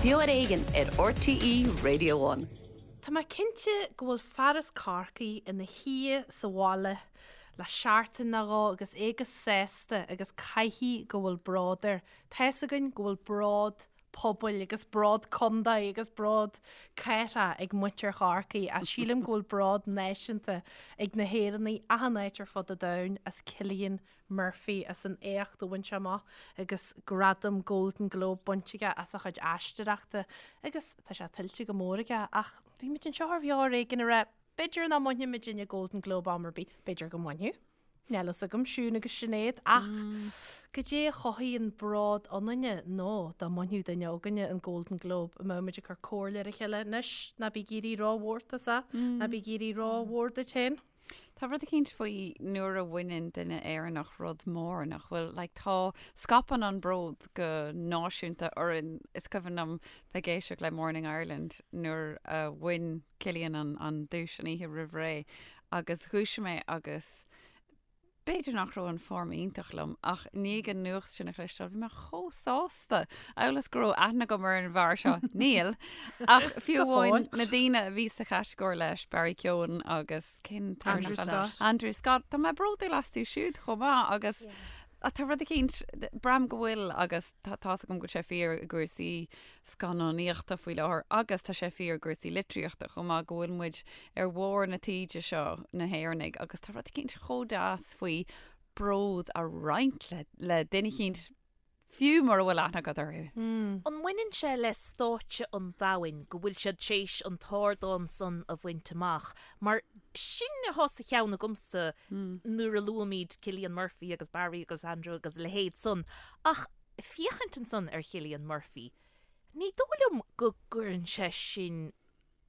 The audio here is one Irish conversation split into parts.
Beo ar Éigean ar RTÉ Radio One. Tá mé cinnte go bhfuil fear as Corcaigh ina shuí sa bhaile le seachtain nó dhó agus é go sásta agus caithfidh go bhfuil bród air. Tá's againn go bhfuil bród pobail agus bród contae agus bród cathrach ag muintir Chorcaí ach sílim go bhfuil bród náisiúnta ag na hÉireannaigh achan áit ar fud an domhain as Cillian Murphy as an éacht a bhain sé amach agus gradam Golden Globe bainte aige as a chuid aisteoireachta agus tá sé tuillte go mór aige ach bhí muid anseo ar Bheo ar Éigean ag rá b'fhéidir nach mbainfidh muidinne Golden Globe am ar bith, b'fhéidir go mbainfidh. Níl fhios agam, Siún agus Sinéad, ach goidé a chothaíonn bród ionainne nó dá mbainfeadh duine againne an Golden Globe, an mbeadh muid ag cur comhairle ar a chéile anois, ná bí ag éirí rómhór tusa, ná bí ag éirí rómhór duit féin. Tá rud eicínt faoi nuair a bhaineann duine Éireannach rud mór nach bhfuil, like tá, scaipeann an bród go náisiúnta orainn. Is cuimhin liom bheith ag éisteacht le Morning Ireland nuair a bhain Cillian an, an duais an oíche roimh ré agus dhúisigh mé agus b'fhéidir nach raibh an form iontach liom ach i ndiaidh an nuacht sin a chloisteáil bhí mé chomh sásta. Amhail is go raibh aithne agam ar an bhfear seo. Níl. Ach fiú amháin na daoine a bhí sa chatagóir leis, Barry Keoghan agus cén Andrew Scott. Andrew Scott. Tá mé bródúil astu siúd chomh maith agus tá rud eicínt, braithim go bhfuil agus tá's agam go bhfuil sé fíor i gcúrsaí scannánaíochta faoi láthair agus tá sé fíor i gcúrsaí litríochta chomh maith go bhfuil muid ar bharr na taoide seo, na hÉireannaigh, agus tá rud eicínt chomh deas faoi bród a roinnt le duine eicínt fiú mura bhfuil aithne agat orthu. An mbaineann sé le stáitse an domhain go bhfuil siad tar éis an t-ardán san a bhaint amach? Mar sin atá sa cheann agamsa nuair a luaimid Cillian Murphy agus Barry agus Andrew agus a leithéid san. Ach féachaint ansan ar Chillian Murphy, ní dóigh liom go gcuireann sé sin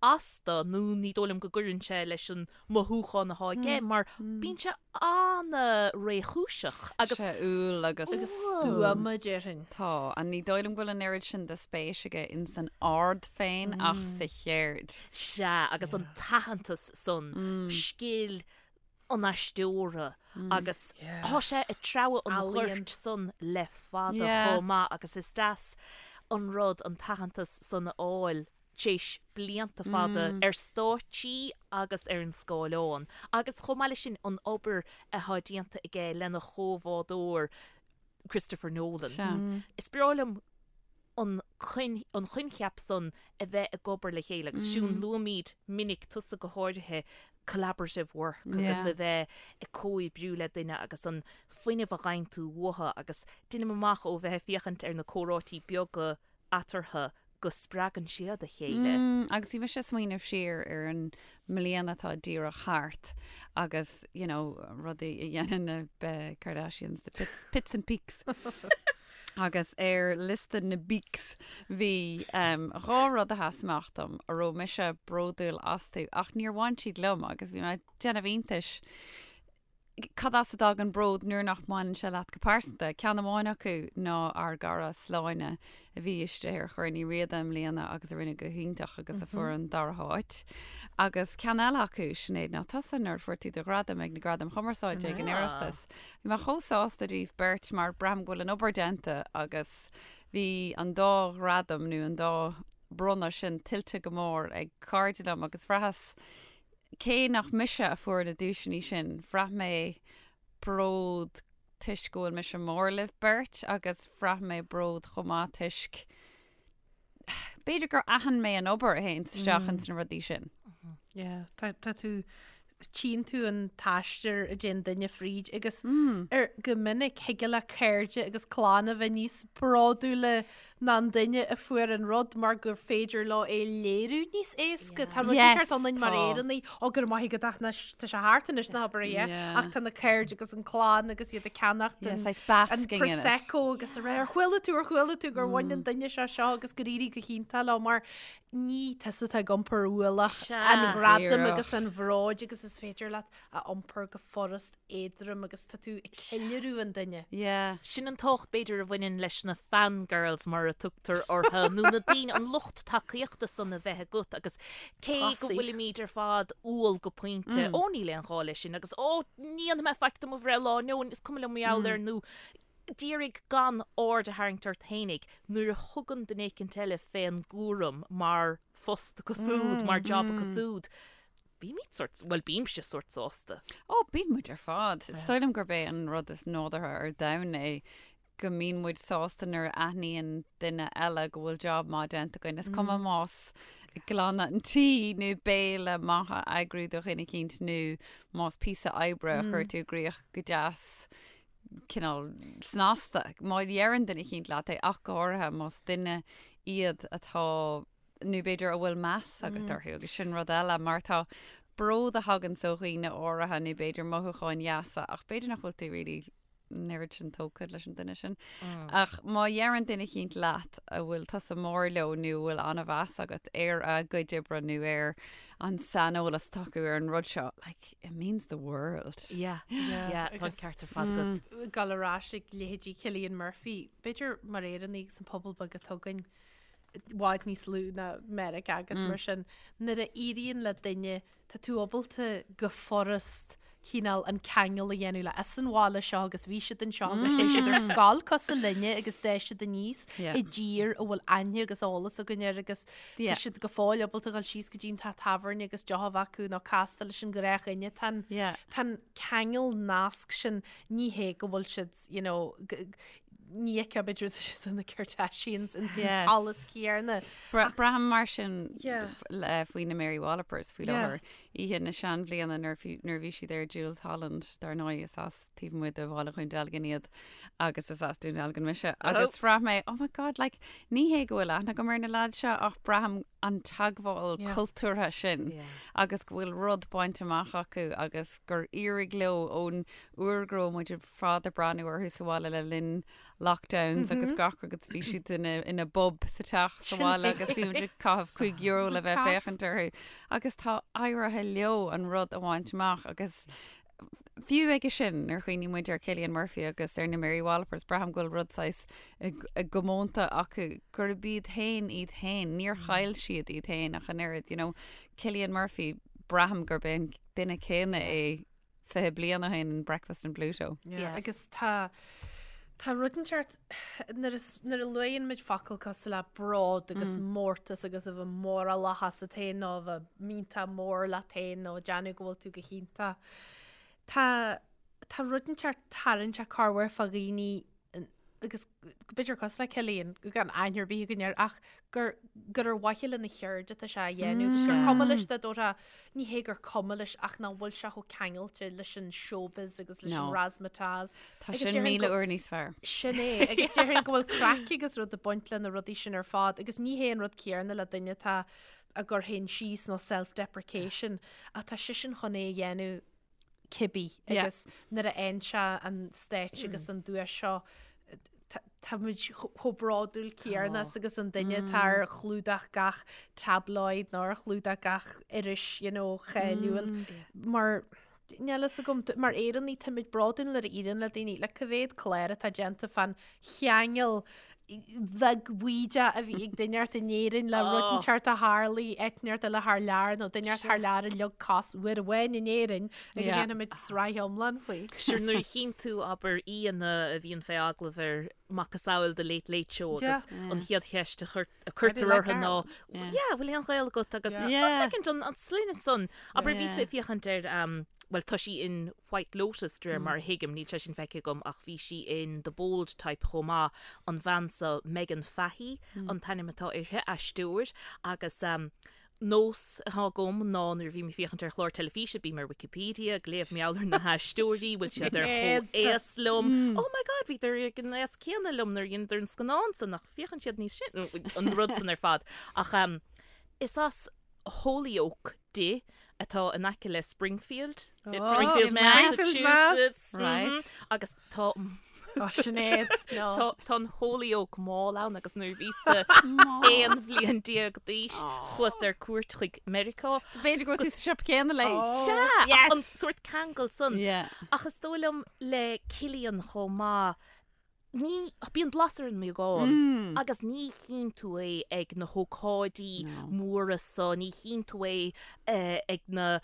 as dó nó ní dóigh liom go gcuireann sé leis an mothúchán atá aige mar bíonn sé an-réchúiseach agus Sé umhal agus Agus stuama, déarfainn. Tá, and ní dóigh liom go bhfuil an oiread sin de spéis aige ins an ard féin ach sa cheird. Sea, agus an t-aitheantas san, scil an aisteora agus tá sé ag treabhadh an ghoirt san le fada chomh maith agus is deas an rud an t-aitheantas san a fháil tar éis blianta fada ar stáitsí agus ar an scáileán agus chomh maith leis sin an obair atá déanta aige lena chomhbhádóir Christopher Nolan. Is breá liom an an coincheap san a bheith ag obair le chéile agus Siún luaimid minic, tusa go háirithe, collaborative work agus a bheith ag comhoibriú le duine agus an fuinneamh a fhaigheann tú uathu agus deinim amach ó bheith ag féachaint ar na comhráití beaga eatarthu go spreagann siad a chéile. Agus bhí mise ag smaoineamh siar ar an mbliain atá díreach thart agus, you know, rudaí a dhéanann na Kardashians, the pits, pits and peaks. Agus ar liosta na bpeaks bhí um, dhá rud a sheas amach dom a raibh mise bródúil astu ach níor bhain siad liom agus bhí mé ag déanamh iontais cad as a dtagann bród nuair nach mbaineann sé leat go pearsanta. Ceann amháin acu ná ár gcara Sláine a bhí istigh ar Chorn Uí Riada i mbliana agus a rinne go hiontach agus a fuair an dara háit. Agus ceann eile acu, Sinéad, ná tusa nuair a fuair tú do ghradam ag na Gradaim Chumarsáide ag an Oireachtas. Bhí mé chomh sásta daoibh beirt mar braithim go bhfuil an obair déanta agus bhí an dá ghradam nó an dá bronnadh sin tuillte go mór ag cairde liom agus bhraitheas Cé nach mise a fuair na duaiseanna sin, bhraith mé bród toisc go bhfuil mise mór libh beirt agus bhraith mé bród chomh maith toisc b'fhéidir gur aithin mé an obair a théann isteach ins na rudaí sin. Yeah, tá tá tú tchíonn tú an t-aistear a dtéann duine fríd agus ar go minic thig le cairde agus clann a bheith níos bródúla ná an duine a fuair an rud mar gur féidir leo é léiriú níos éasca. Tá rud inteacht ionainn mar Éireannaigh, ó go raibh maith agat ach anois tá sé thart anois ná habair é, ach tá na cairde agus an clann agus iad ag ceannacht an Prosecco agus a rá ar chuala tú ar chuala tú gur bhain an duine seo seo agus gur éirigh go hiontach leo mar ní tusa atá ag iompar ualach an ghradaim agus an bhróid agus is féidir leat a iompar go furast éadrom agus tá tú ag ceiliúradh an duine. Yeah. Sin an tábhacht b'fhéidir a bhaineann leis na fangirls mar a tugtar orthu, nó na daoine, an lucht tacaíochta san a bheith agat agus cé go bhfuilimid ar fad umhal go pointe, ó níl aon ghá leis sin agus ó ní dhéanfaidh mé faic do mo bhreithlá nó is cuma liom mar gheall air nó. D'iarraidh gan aird a tharraingt ort fhéinig nuair a thugann duine éicint eile fén gcúram mar phost acu súd, mar job acu súd. Bímid sórt, bhuel bímse sórt sásta. Ó, bíonn muid ar fad. Is dóigh liom gurb é an rud is nádúrtha ar domhan é go mbíonn muid sásta nuair a aithníonn duine eile go bhfuil job maith déanta againn. Is cuma más glanadh an tí nó béile maith a eagrú do dhuine eicínt nó más píosa oibre a chuir tú i gcrích go deas cineál snasta. Má dheireann duine eicínt leat é, ach go háirithe más duine iad atá, nó b'fhéidir a bhfuil meas agat orthu, agus sin rud eile, mar tá bród a thaganns ó dhaoine áirithe nó b'fhéidir mothúcháin dheasa, ach b'fhéidir nach bhfuil tú really an oiread sin tógtha leis an duine sin. Ach má dheireann duine eicínt leat a bhfuil tusa mór leo nó a bhfuil an-mheas agat ar a gcuid oibre nó ar an saineolas atá acu ar an rud seo, like, it means the world. Yeah, yeah, tá an ceart ar fad agat. Ag dul ar ais ag leithéidí Cillian Murphy, b'fhéidir mar Éireannaigh agus an pobal beag atá againn, i bhfad níos lú ná Meiriceá agus mar sin, nuair a éiríonn le duine, tá tú ábalta go furast cineál an ceangal a dhéanamh le as an bhaile seo agus bhí siad anseo agus bhí siad ar scoil cosúil linne agus d'fhás siad aníos i dtír a bhfuil aithne agus eolas againn air agus Tá siad go fóill ábalta a dhul síos go dtí an teach tábhairne agus deoch a bheith acu nó castáil leis an ghnáthdhuine. Tá an tá an ceangal nasc sin, ní hé go bhfuil siad, you know, ní fheicfeá b'fhéidir tá siad na Kardashians in san t-allas céanna. Braithim mar sin faoi na Mary Wallopers faoi láthair. Oíche na seanbhliana nuair a bhí siad ar Jools Holland, dar ndóigh is as taobh amuigh de bhaile Dhún Dealgan iad agus is as Dún Dealgan mise agus bhraith mé, oh my god, like, ní hé go bhfuil aithne agam ar na lads seo ach braithim an teagmháil cultúrtha sin agus go bhfuil rud bainte amach acu agus gur éirigh leo ón uair go raibh muid ar fad ag breathnú orthu sa bhaile le linn lockdowns agus gach rud agus bhí siad ina, ina bpub sa teach sa bhaile agus bhí muid ag caitheamh €5 le bheith ag féachaint orthu agus tá éirithe leo an rud a bhaint amach agus Fiú aige sin, nuair a chuimhníonn muid ar Cillian Murphy agus ar na Mary Wallopers, braithim go bhfuil rud saghas i gcomónta acu gurb iad féin iad féin. Níor chaill siad iad féin ach an oiread, you know. Cillian Murphy, braithim gurb é an duine céanna é 20 bliain ó shin in Breakfast in Pluto. Yeah. Agus tá tá rud inteacht nuair a nuair a luann muid focal cosúil le bród agus mórtas agus a bheith mórálach asat féin nó a bheith millteach mór leat féin nó ag déanamh go bhfuil tú go hiontach. Tá tá rud inteacht tarraingteach corruair fá dhaoine agus b'fhéidir cosúil le Cillian, gan aithne ar bith againn air, ach gur gur ar mhaithe lena cheird atá sé á dhéanamh, agus gur cuma leis dá dtabharfá, ní hé gur cuma leis ach nach bhfuil sé chomh ceangailte leis an showbiz agus leis an razzmatazz. Tá sin 1000 uair níos fearr. Sin é, agus déarfainn go bhfuil craic agus rud ag baint le na rudaí sin ar fad, agus ní hé an rud céanna le duine atá ag cur féin síos nó self-deprecation, ach tá seisean chun é a dhéanamh cibé agus nuair a fhaigheann sé an stáitse agus an duais seo tá muid chomh bródúil céanna as agus an duine atá ar chlúdach gach tabloid nó ar chlúdach gach iris you know, cháiliúil mar níl a fhios agam mar Éireannaigh táimid bródúil nuair a éiríonn le daoine le cá mhéad clár atá déanta fán cheangal bheag bhaoideach a bhí ag duine inteacht in Éirinn le rud inteacht a tharlaigh áit inteacht eile thar lear nó duine inteacht thar lear a leag cos uair amháin in Éirinn agus déanfaimid sraith iomlán faoi. Sure nuair a chíonn tú abair aíonna a bhíonn fé agallamh ar macasamhail The Late Late Show agus an chéad cheist a cuirtear orthu ná yeah bhfuil aon ghaol agat agus one second an sloinne san abair bhíos ag féachaint ar bhuel tá sí in White Lotus, de réir mar a thuigim, níl sé sin feicthe agam ach bhí sí in The Bold Type chomh maith, an bhean so, Meghann Fahy an t-ainm atá uirthi, aisteoir, agus nós atá agam ná nuair a bhím ag féachaint ar chlár teilifíse, bím ar Wikipedia ag léamh mar gheall ar na haisteoirí, bhfuil siad ar chomh-aos liom, oh my god, bhíodar ag an aos céanna liom nuair a dheineadar an scannán san, nach féachann siad níos sine, an rud san ar fad. Ach is as Holyoke di, atá in aice le Springfield, Springfield, Massachusetts. Right. Agus tá Ó, Sinéad, no. Tá tá an Holyoke Mall ann agus nuair a bhíos-sa 11 bhliain d'aois chuas ar cuairt chuig Meiriceá. So b'fhéidir go raibh tú sa siopa céanna léi. Sea, Yes. an sórt ceangal san. Yeah. Ach is dóigh liom le Cillian chomh maith. Ní, bíonn blas ar an mbeagán agus ní chíonn tú é ag na hócáidí móra so, ní chíonn tú é ag na,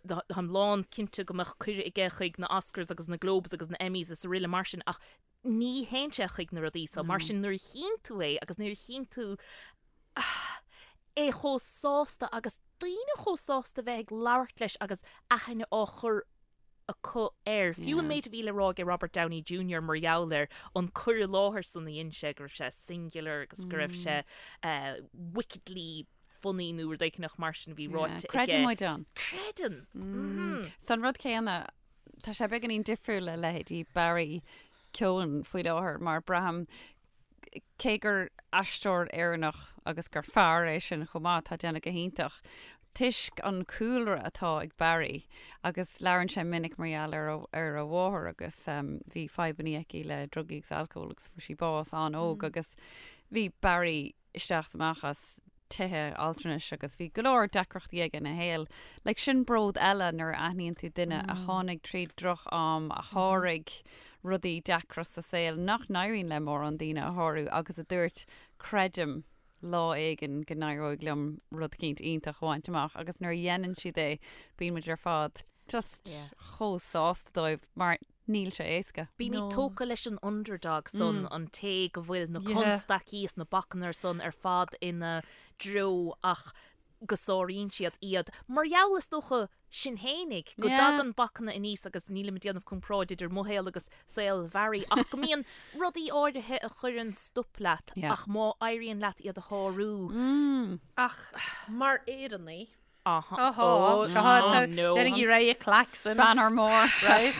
táim lán cinnte go mbeadh cuireadh aige chuig na Oscars agus na Globes agus na Emmys is araile mar sin ach ní théann sé chuig na rudaí so. Mar sin nuair a chíonn tú é agus nuair a chíonn tú é chomh sásta agus daoine chomh sásta bheith ag labhairt leis agus aithne á chur acu air. Fiú an méid a bhí le rá aige Robert Downey Junior mar gheall air, an cur i láthair san a dhein sé, go raibh sé singular agus go raibh sé wickedly funny nó rud éicneach mar sin a bhí ráite aige. Creideann muid ann. Creideann! Mhm. So an rud céanna, tá sé beagáinín difriúil le leithéidí Barry Keoghan faoi láthair mar braithim cé gur aisteoir Éireannach agus gur fear é sin chomh maith, atá ag déanamh go hiontach, toisc an cúlra atá ag Barry agus labhrann sé minic mar gheall ar ar a mháthair agus bhí fadhbanna aici le drugaí agus alcól agus fuair sí bás an-óg agus bhí Barry isteach is amach as tithe altranais agus bhí go leor deacrachtaí aige ina shaol. Like sin bród eile nuair a aithníonn tú duine a tháinig tríd droch-am, a sháraigh rudaí deacra sa saol nach n-éiríonn le mórán daoine a shárú agus a dúirt creidim lá éigin go n-éireoidh liom rud eicínt iontach a bhaint amach agus nuair a dhéanann siad é bíonn muid ar fad just chomh sásta dóibh mar níl sé éasca. Bímid tógtha leis an underdog san, an té go bhfuil na constaicí is na bacanna san ar fad ina dtreo ach go sáraíonn siad iad. Mar gheall, is dócha, sinn fhéinig, go dtagann bacanna aníos agus nílim ag déanamh comparáid idir mo shaol agus saol Bharry ach go mbíonn rudaí áirithe a chuireann stop leat ach má éiríonn leat iad a shárú. Ach mar Éireannaigh, Aha. Oh, no. Déanaigí réidh a klaxon. Banner mór. Right?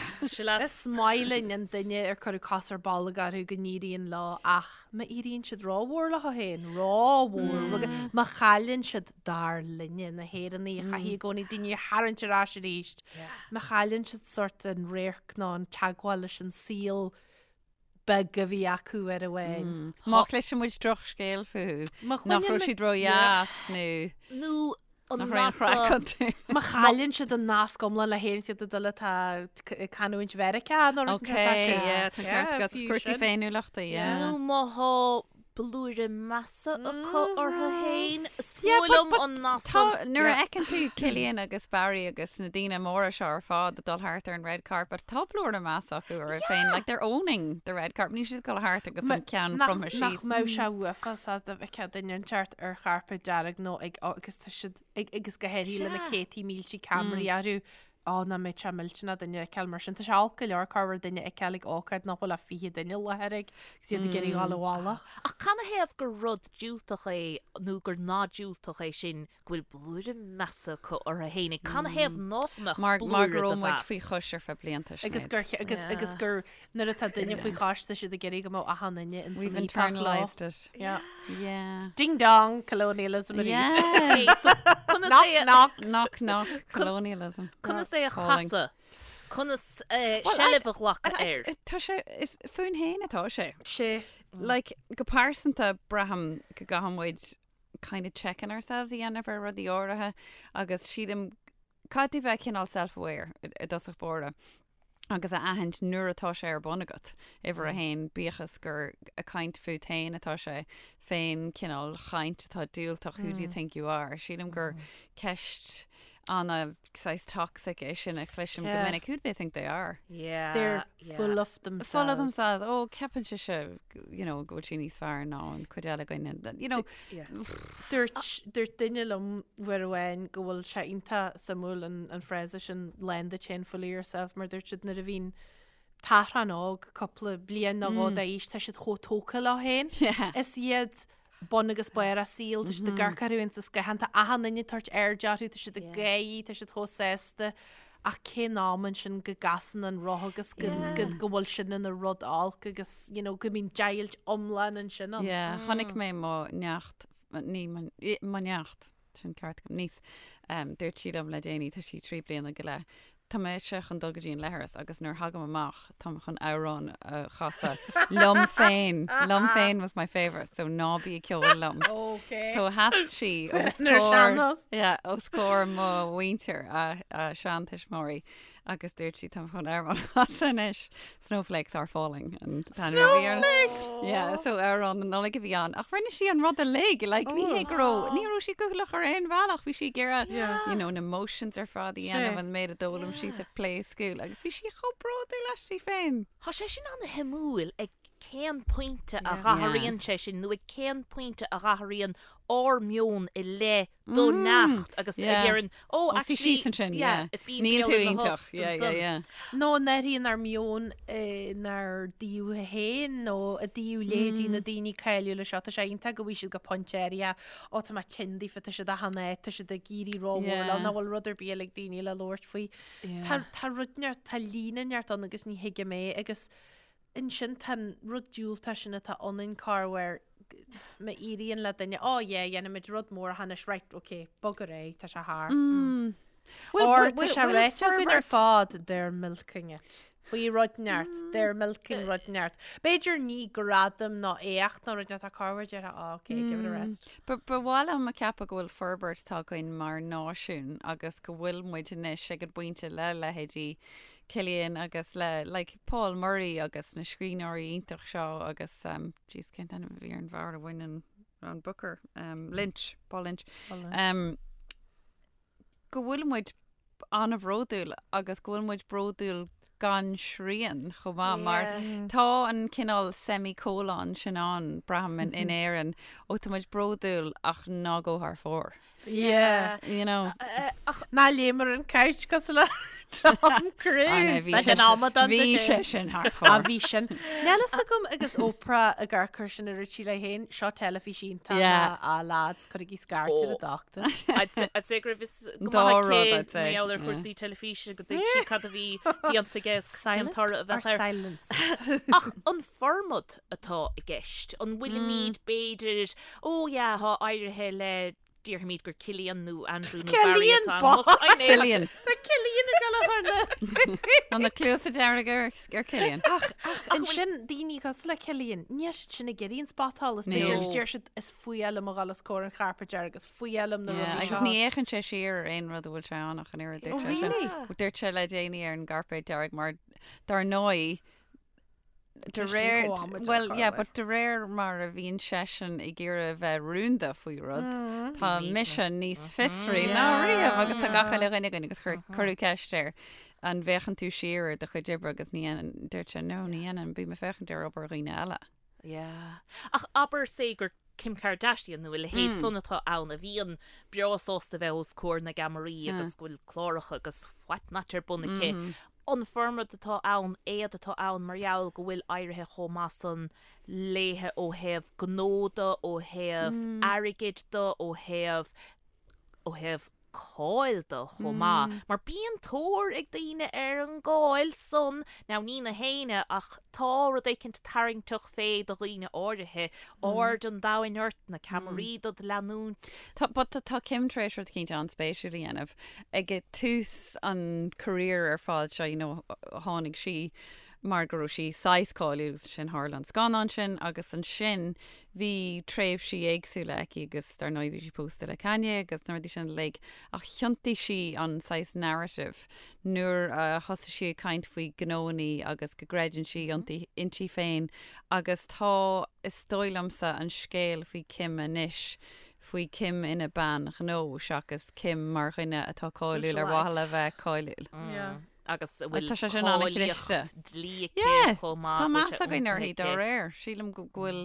Is maith linn an duine ar cuireadh cos ar bolg orthu go n-éiríonn leo ach má éiríonn siad rómhór leo féin, rómhór, má chailleann siad dar linne, na hÉireannaigh a chaithfidh i gcónaí daoine a tharraingt ar ais arís, má chailleann siad sórt an radharc nó an teagmháil leis an saol beag a bhí acu ar amháin. Má chloiseann muid drochscéal fúthu, nach raibh siad ródheas nó nó an nach raibh aon chraic iontu. Má chailleann siad an nasc iomlán le hÉirinn siad ag dul atá ag canúint Mheiriceá nó rud Ok, yeah, tá ceart agat. Cúrsaí féiniúlachta, yeah. Nó má thá blúire measa acu orthu féin. Is fuath liom an nath san. Nuair a fheiceann tú Cillian agus Barry agus na daoine móra seo ar fad ag dul thart ar an red carpet, tá blúire measa acu orthu féin. Like they're owning the red carpet. Níl siad ag dul thart agus an ceann cromtha síos. Nach mbeadh sé uafásach dá bhfeicfeá duine inteacht ar chairpéad dearg nó ag agus tá siad ag agus go háirithe le na céadtaí míltí ceamaraí orthu Á, nach mbeadh sé millteanach duine a fheiceáil mar sin. Tá sé olc go leor corruair duine a fheiceáil ag ócáid nach bhfuil ach 20 duine i láthair ag agus iad ag iarraidh dhul abhaile. Ach canathaobh gur rud diúltach é nó gur nath diúltach é sin go bhfuil blúire measa acu orthu fhéinig? Canathaobh nach mbeadh Mar blúire go de raibh muid mheas? faoi chois ar feadh blianta, Agus Sinéad. gur, agus, agus gur nuair atá duine faoi chois tá siad ag iarraidh go mbeadh achan duine in We've san íopach leo. internalised it. Yeah. Yeah. Ding dong, colonialism arís. Yeah. Okay, so conas Knock é a- knock. Knock knock colonialism. Conas é a Calling. chasadh? Conas eh, Well, seilbh a ghlacadh air? Tá sé, is fúinn féin atá sé. Sé. Like, go pearsanta braithim go gcaithfidh muid kind of checking ourselves a dhéanamh ar rudaí áirithe agus sílim caithfidh tú bheith cineál self-aware i dtosach báire agus a aithint nuair atá sé ar bun agat. Uimhir a haon, bíodh is gur ag caint fút féin atá sé, fén cineál chaint atá diúltach, who do you think you are? Sílim gur ceist ana saghas toxic é sin a chloisim go minic, who do they think they are? Yeah. They're full of themselves. Full of themselves. Ó, ceapann sise, you know, go bhfuil sí níos fearr ná an cuid eile againne. You know, Dúirt, dúirt duine liom uair amháin go bhfuil sé iontach suimiúil an, an frása sin lán duit féin full of yourself mar dúirt siad nuair a bhíonn tachrán óg cúpla bliain nó dhó d'aois tá siad chomh tógtha leo féin. Yeah. Is iad bun agus barr a saoil, tá siad ag amharc orthu ins an scáthán, tá achan duine ag tabhairt aird orthu, tá siad ag gáirí, tá siad chomh sásta. Ach cén am ansin go gcasann an roth agus go, go, go bhfuil sin ina rud olc agus, you know, go mbíonn deighilt iomlán ansin ann. Yeah, chonaic mé mo neacht, ní mo, mo neacht, sin ceart agam, niece, um, dúirt sí liom le déanaí, tá sí 3 bliana go leith, Tá mise chun dul go dtí an leithreas agus nuair a thagaim amach táim chun amhrán a chasadh liom féin. Liom féin was my favourite, so ná bí ag ceol liom. Ok. So sheas sí os Ar comhair sean-nós. yeah, os comhair mo mhuintir, a, a seantuismitheoirí. Agus dúirt sí tá chun amhrán a chasadh anois Snowflakes are falling and Snowflakes! Yeah, so amhrán na Nollag a bhí ann. Ach rinne sí an rud uilig, like, ní hé go raibh, ní raibh sí cúthaileach ar aon bhealach, bhí sí ag iarraidh, you know, na motions ar fad a dhéanamh an méid a d'fhoghlaim sí sa play school agus bhí sí chomh bródúil aisti féin. Tá sé sin an-shuimiúil ag cén pointe a dh'athraíonn sé sin nó ag cén pointe a dh'athraíonn ár meon i leith do neacht agus a dheireann, oh actually, síos ansin, yeah, is bíonn Níl tú iontach, yeah, yeah, yeah. Nó an athraíonn ár meon inár dtaobh féin nó i dtaobh leithéidí na daoine cáiliúla seo, tá sé iontach go bhfaighidh siad go pointe áirithe, ó tá mé tinn daofa, tá siad achan áit, tá siad ag éirí rómhór leo, nach bhfuil rud ar bith eile ag daoine le labhairt faoi. Tá tá rud neart, tá líne neart ann agus ní thuigim é agus ansin tá an rud diúltach sin atá ionainn corruair má éiríonn le duine, oh yeah, dhéanfaimid rud mór anois, right, ok, bog ar aghaidh, tá sé thart. Mm. Or tá sé ráite againn ar fad, they're milking it. Faoi rud neart, they're milking rud neart. B'fhéidir ní gradam ná éacht ná rud neart, tá corruair déarfá, oh, ok, give it a rest. Ba mhaith liom a cheapadh go bhfuil forbairt tagtha againn mar náisiún agus go bhfuil muid anois ag an bpointe le leithéidí Cillian agus le like Paul Murray agus na scríbhneoirí iontach seo agus um, jeez cén t-ainm a bhí ar an bhfear a bhain an, an Booker um, Lynch, Paul Lynch. Paul Lynch. Um, go bhfuil muid an-bhródúil agus go bhfuil muid bródúil gan srian chomh maith mar tá an cineál semicolon sin ann braithim in, in Éirinn ó tá muid bródúil ach ná gabh thar fóir. Yeah. You know. Ach ná léim ar an couch cosúil le Tom Cruise. Bhí sé amadán Bhí sé sin thar fóir. A bhí sin. Níl fhios agam agus Oprah ag amharc air sin a dúirt sí léi féin, seo teilifís iontach Yeah. a lads, cuirigí scairt ar an dochtúir. I'd say go raibh fhios go Dá maith rud, aici I'd say. mar gheall ar Yeah. chúrsaí teilifíse go dtuig sí cad a bhí déanta aige is cén Silent toradh a or bheadh air. silence? Ach an formad atá i gceist, an bhfuilimid b'fhéidir Ó yeah, thá éirithe le, déarfaimid gur Cillian nó Andrew nó Barry Cillian atá Boss! ann. I know, Cillian. Tá Cillian ag dul a chur le. Tá na cluasa dearga ar ar Cillian. Ach, ach ansin daoine cosúil le Cillian, níl siad sin ag iarraidh an spotsolas, Níl. b'fhéidir agus deir siad is fuath liom a dhul os comhair an chairpéid dearg, is fuath liom na Yeah, rudaí agus seo. ní fhéachann sé siar ar aon rud a bhfuil sé ann ach an oiread Oh, dúirt sé sin. really? Dúirt sé le déanaí ar an gcairpéad dearg mar dar ndóigh De réir, well, yeah, but de réir mar a bhíonn seisean ag iarraidh a bheith rúnda faoi rud, tá mise níos fiosraí ná riamh agus tá gach uile dhuine againn agus cuireadh ceist air an bhféachann tú siar ar do chuid oibre agus ní dhéanann, dúirt sé no, ní dhéanann, bím ag féachaint ar obair dhaoine eile. Yeah. Ach abair say gur Kim Kardashian nó a leithéid san atá ann a bhíonn breá sásta bheith os comhair na gceamaraí agus go bhfuil cláracha agus what not ar bun aici. An formad atá ann, éard atá ann mar gheall go bhfuil éirithe chomh maith san léithe ó thaobh gnó de, ó thaobh airgid de, ó thaobh, ó thaobh cáil de chomh maith. Mar bíonn tóir ag daoine ar an gcáil san, now ní na héinne ach tá rud éicint tarraingteach fé do dhaoine áirithe, aird an domhain ort, na ceamaraí dod leanúint. Tá, but tá Kim tar éis rud eicínt an-spéisiúil a dhéanamh. Ag tús an career ar fad seo, you know, tháinig sí mar go raibh sí saghas cáiliúil agus ansin tharla an scannán sin agus ansin bhí tréimhsí éagsúla aici agus dar ndóigh bhí sí pósta le Kanye agus na rudaí sin uilig ach thiontaigh sí an saghas narrative nuair a thosaigh sí ag caint faoi gnóannaí agus go gcreideann sí ionti, inti féin agus tá, is dóigh liomsa, an scéal faoi Kim anois, faoi Kim ina bean ghnó seachas Kim mar dhuine atá cáiliúil ar mhaithe le bheith cáiliúil. Yeah. Agus a bhfuil Tá sé sin an-chliste. cáilíocht dlí aici Yeah, chomh maith. tá go bhfuil meas sé againn uirthi iontaithe dá aici. réir. Sílim go bhfuil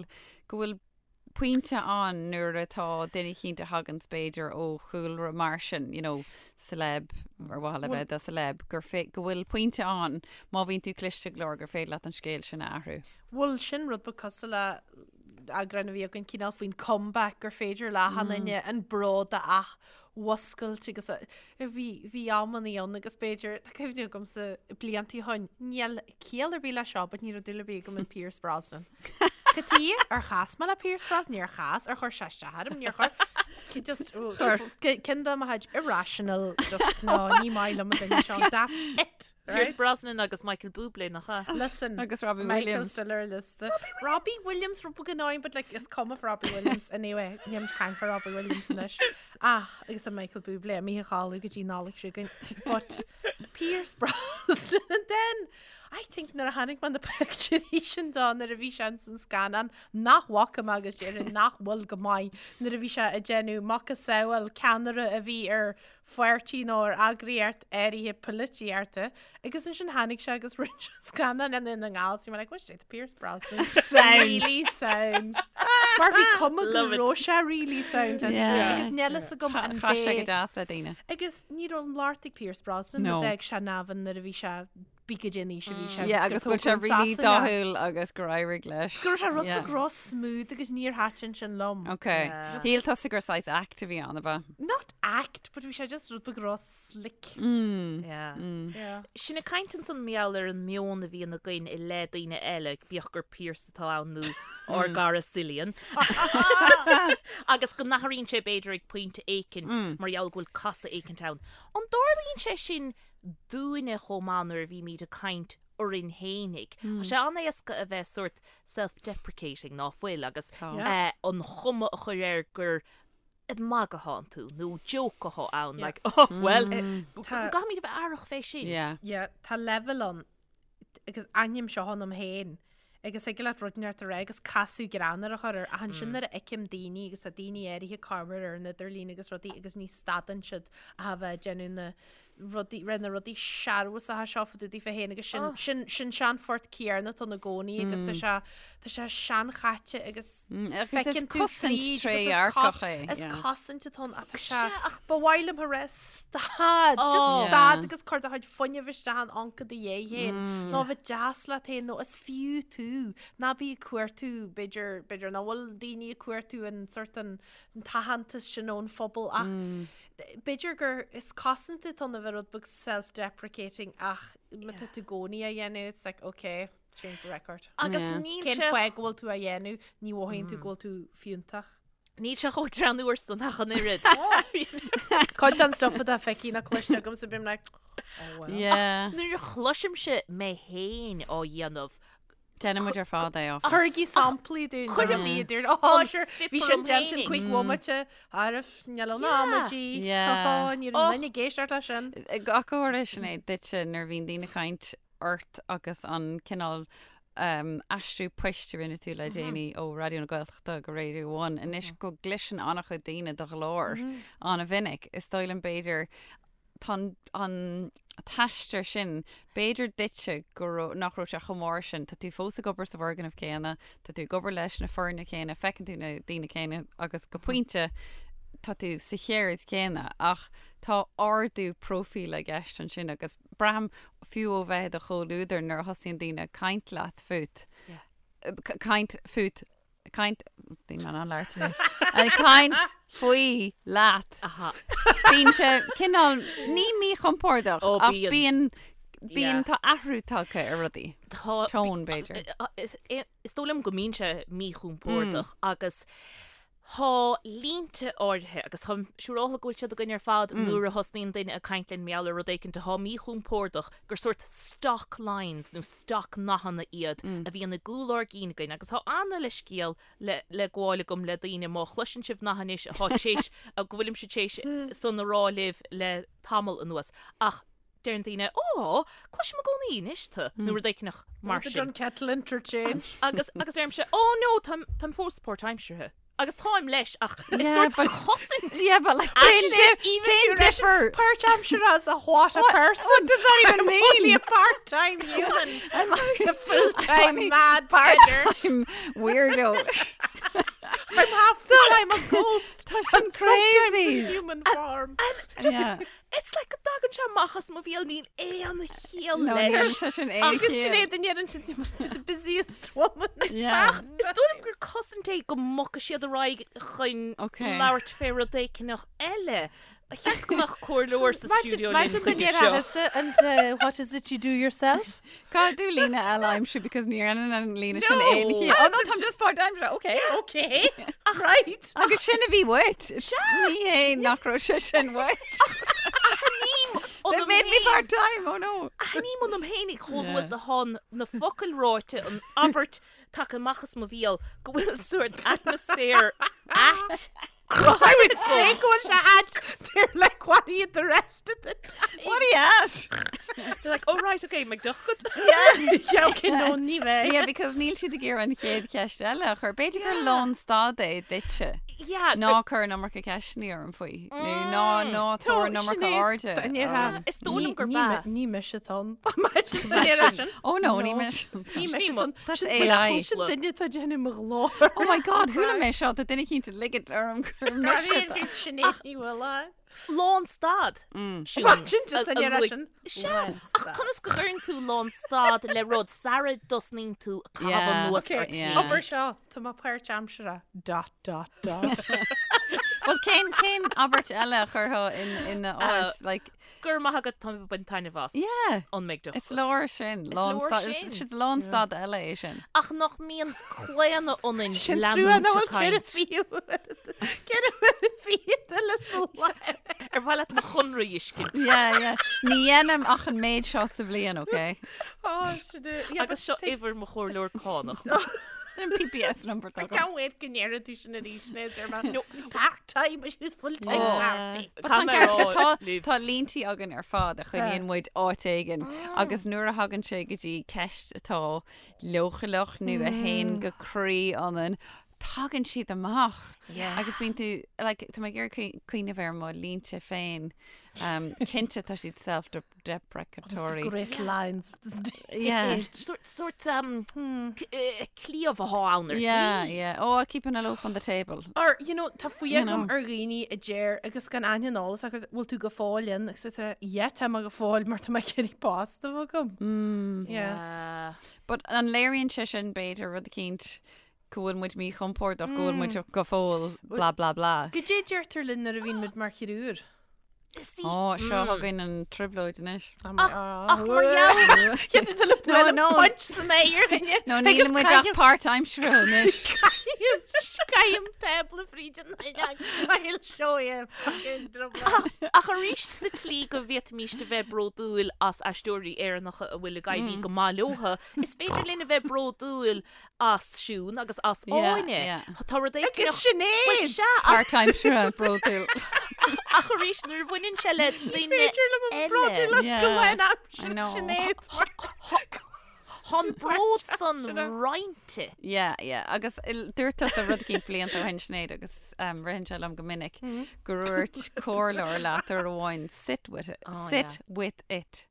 go bhfuil pointe ann nuair atá duine eicínt a thaganns b'fhéidir ó chúlra mar sin, you know, celeb, ar mhaithe le bheith do celeb, gur fé, go bhfuil pointe ann má bhíonn tú cliste go leor gur féidir leat an scéal sin a athrú. Bhuel, sin rud ba cosúil le eagrán a bhí againn cineál faoin comeback gur féidir le achan duine an bród a athmhuscailt agus a, bhí, bhí amannaí ann agus b'fhéidir, tá cuimhne agamsa blianta ó shoin, níl ciall ar bith le seo but ní raibh dúil ar bith agam in Pierce Brosnan. Cad tuige ar chas mé le Pierce Brosnan? Níor chas, ar chuir sé isteach orm, níor chuir. Just, cinn de mo chuid irrational, just no, ní maith liom an duine seo, that's it. Pierce Brosnan agus Michael Bublé nach ea? Listen, Agus Robbie Michael Williams. still ar liosta. Robbie Williams rud beag annoying, but like, is cuma for Robbie Williams anyway. Níl muid ag caint fá Robbie Williams anois. Ach, agus an Michael Bublé, imithe a chodladh go dtí Nollaig seo chugainn. But Pierce Brosnan. Brosnan and then I think nuair a chonaic mé na pictiúirí sin dó nuair a bhí sé ins an scannán nach bhfaca mé agus déarfainn nach bhfuil go maith nuair a bhí sé ag déanamh macasamhail ceannaire a bhí ar pháirtí nó ar eagraíocht áirithe polaitíochta agus ansin tháinig sé agus rinne sé scannán i nDún na nGall so bhí mé like what's it Pierce Brosnan Sound. really sound mar bhí cuma go Love it. raibh sé really sound Yeah. agus níl fhios agam an Chaith sé go b'é deas le daoine. agus ní raibh an locht ag Pierce Brosnan No. a d'fhág sé Navan nuair a bhí sé bí go dtí an aois a bhí sé Yeah, agus gur go bhfuil sé tógadh really in Sasana. dathúil agus gur éirigh leis. Go raibh sé rud Yeah. beag ró-smooth agus níor thaitin sin liom. Ok. Yeah. Shíl tusa gur saghas act a bhí ann, ab ea? Not act, but bhí sé just rud beag ró-slick. Mm. Yeah. Yeah. Sinn ag caint ansan mar gheall ar an meon a bhíonn againn i leith daoine eile, bíodh gur Pierce atá ann nó ár gcara Cillian. Agus go n-athraíonn sé b'fhéidir ag pointe éicint mar gheall go bhfuil casadh éicint ann. An dtarlaíonn sé sin dúinne chomh maith nuair a bhímid ag caint orainn fhéinig. Tá sé an-éasca a bheith sórt self-deprecating, ná fuil, agus an chuma a chur air gur ag magadh athánn tú nó joke athá ann, like, oh, well, caithfimid a bheith aireach fé sin. Yeah, tá leibhéal ann agus aithním seo ionam féin agus thig leat rud inteacht a rá agus casadh greannmhar a chur air ach ansin nuair a fheicim daoine agus tá daoine áirithe ag comhrá ar an idirlíon agus rudaí agus ní stadann siad ach a bheith ag déanamh na rudaí, rith na rudaí searbhasacha seo fá dtaobh daofa féin agus sin, oh. sin, sin sean phort céanna atá i gcónaí agus tá sé, tá sé seanchaite agus mm, feiceann tú cosaint trédhearcach é. Is cosaint atá ann ach tá sé, ach ba mhaith liom a rá stad, just oh. stad agus cuir do chuid fuinnimh isteach in anca do dhéidh féin, mm. nó bheith deas leat féin nó is fiú tú, ná bí ag cuartú, b'fhéidir, b'fhéidir nach bhfuil daoine ag cuartú an sort an t-aitheantas sin ón phobal ach mm. B'fhéidir gur is cosaint atá ann a bheith rud beag self-deprecating ach má tá tú i gcónaí á dhéanamh it's like ok, change the record. Agus Yeah. níl Cén sé fáth go bhfuil tú á dhéanamh, ní mhothaíonn tú go bhfuil tú fiúntach. Níl sé chomh greannmhar san ach an oiread. Cuid den stuff atá feicthe nó cloiste agam so bím like oh well. Yeah. Nuair a chloisimse mé féin á dhéanamh, Déanann muid ar fad é, áfach. Tabhairigí samplaí dúinn. Cuirim rudaí a dúirt, Ó, an sure, bhí phip sin orm déanta in fhéinig. cúig bhomaite, arbh, níl ann amaidí. Yeah. Ní raibh duine ag éisteacht leis sin. Ach go háirithe Sinéad duitse nuair a bhíonn daoine ag caint ort agus an cineál um, aistriú poist a rinne tú le déanaí ó Raidió na Gaeltachta go Radio One. Anois go gcloiseann an-chuid daoine do ghlór an-mhinic. Is dóigh liom b'fhéidir tá an t-aistear sin, b'fhéidir duitse go raibh, nach raibh sé chomh mór sin, tá tú fós ag obair sa bhfoirgneamh céanna, tá tú ag obair leis na foirne céanna, feiceann tú na daoine céanna agus go pointe tá tú sa cheird chéanna ach tá ardú próifíle i gceist ansin agus braithim fiú ó bheith i do chomhluadar nuair a thosaíonn daoine ag caint leat fút, caint fút caint bhí mé an labhairt inniu. Ag caint faoi leat. Aha. Bíonn sé cineál ní míchompordach Ó, ach bíonn. bíonn bíonn Yeah. tá athrú tagtha ar rudaí. Tá Tone, b'fhéidir. Is is dóigh liom go mbíonn sé míchompordach agus tá línte áirithe agus táim siúráilte go bhfuil siad againn ar fad nuair a thosnaíonn duine ag caint linn mar gheall ar rud éicint atá míchompordach gur sórt stock lines nó stock nathanna iad a bhíonn i gcúl ár gcinn againn agus tá ana-leithscéal le le gabháil agam le daoine má chloiseann sibh nath anois atá t'éis go bhfuilimse t'éis san a rá libh le tamall anuas ach deireann daoine Ó, cloisim i gcónaí anois tú nó rud éicneach mar The sin. Dunkettle interchange. Agus agus deirimse Ó no, táim táim fós páirtaimseartha. Agus táim leis ach is Yeah, sórt but- cosaint Yeah, but like cén cén difear? Páirtaimseartha as a what a person. What does that even I'm mean? only a part-time human. I'm like a full-time only mad part part-time weirdo. I'm half the time a ghost. Tá sin and sometimes crazy. in human form. Just Yeah. It's like go dtagann sé amach as mo bhéal níl aon chiall No, leis. níl sé sin aon Agus chiall. Sinéad an ndeireann sin you must be the busiest woman. Yeah. Ach is dóigh liom gur cosaint é go mbogfaidh siad ar aghaidh chun Okay. labhairt fé rud éicneach eile. Cheap go mbeadh comhairleoir sa stiúideo linn Imagine the chuige near seo. Athasa and uh, what is it you do yourself? Caithfidh tú líne eile a aimsiú because ní dhéanann an líne sin No. aon chiall. Oh no, táim just part-time. Okay. Okay. Right. Agus sin a bhí uait. Ní hé nach raibh sé sin uait. They made me part-time, oh no. Aithním ionam fhéinig chomh luath is atá na focail ráite an abairt tagtha amach as mo bhéal go bhfuil sórt atmaisféar ait I would say go bhfuil sé ait. They're like, what are you the rest of the time? What are you at? They're like, oh right, okay, McDuffie. Yeah, okay, no, ní bheidh. Yeah, because níl siad ag iarraidh an chéad cheist eile a chur. B'fhéidir gur lánstad é duitse. Yeah. Ná cuir an iomarca ceisteanna orm faoi. Nó ná ná tabhair an iomarca airde. orm. Is dóigh liom gurb ea. Ní mise atá ann. Oh no, ní mise. Ní mise atá ann. That's AI. Sin duine atá ag déanamh mo ghlór. Oh my God, chuala mé seo, tá duine eicínt ag ligint orm gur mise atá. Sinéad Ní Mhaoláin. Lánstad. Sin just an iarraidh sin. Sea, ach conas go gcuireann tú lánstad le rud sara dtosnaíonn tú ag caitheamh anuas ort féin? Obair seo, tá mé páirtaimseartha. Dot, dot, dot. Bhuel, cén, cén abairt eile a chuirfeá in, ina áit? Like, Go raibh maith agat, tá mé ag baint taitneamh as. Yeah. An McDuff. Is leor sin. Is leor Lánstad. sin. Is lánstad eile é sin. Ach nach mbíonn claonadh ionainn Sin trua leanúint nach ag bhfuil ceithre caint. fiú. Ceithre huaire fichead eile sa lá. Ar mhaith leat mo chonradh a fheiscint? Yeah, yeah. Ní dhéanaim ach an méid seo sa bhliain, okay? Oh, sin é. Yeah, Agus seo uimhir mo chomhairleoir cánach. An PPS number I atá agam. can't wait go ndéarfaidh tú sin arís, Sinéad, ar mé. No, part-time, but she was full-time Oh. party. But tá Caithfidh mé a ceart go- rá tá- libh. Tá líntí againn ar fad a choinníonn muid áit éigin agus nuair a thagann sé go dtí ceist atá leochaileach nó a théann go croí ionainn, tagann siad amach. Agus bíonn tú, like, tá mé ag iarraidh cuimhneamh ar mo línte féin. Um, cinnte tá siad self-deprecatory. Great lines of this day. Yeah. Sort, sort um, eh, cliabh atá ann ar Yeah, yeah. Oh, keeping a loaf on the table. Or, you know, tá fuath You agam know. ar dhaoine a deir agus gan aithne an eolas acu, bhfuil tú go fóill in agus tá, yeah, tá mé go fóill mar tá mé ag iarraidh post a bheith agam. Mm. Yeah. But an léiríonn sé sin b'fhéidir rud eicínt go bhfuil muid míchompordach, go bhfuil muid go fóill blah blah blah. Goidé a deirtear linn nuair a bhíonn muid mar chriúr? See, Ó, seo chugainn an trioblóid anois. Ach, ach mar gheall Cé tú le No, no. punch san aer duine. No, níl muid ach páirtaimseartha anois. Caithim tábla fríd an I'll show you fucking drubla. Ach arís sa tslí go bhféadfaimis a bheith bródúil as aisteoirí Éireannacha a bhfuil ag éirí go maith leotha, is féidir linn a bheith bródúil as Siún agus as Yeah, Áine. yeah. Tá rud éigin Agus Sinéad! Bhuel, sea, ach, Páirtaimseartha bródúil. ach arís nuair a bhaineann sé le duine Féidir liom an bródúil as go Yeah, bhfuil I know. Sinéad. Tá an bród san roinnte. Yeah, yeah. Agus il- dúirt tusa rud eicínt blianta ó shin Sinéad agus um, ritheann sé liom go minic gur dhúirt comhairleoir leat uair amháin sit with it, Oh, sit with it.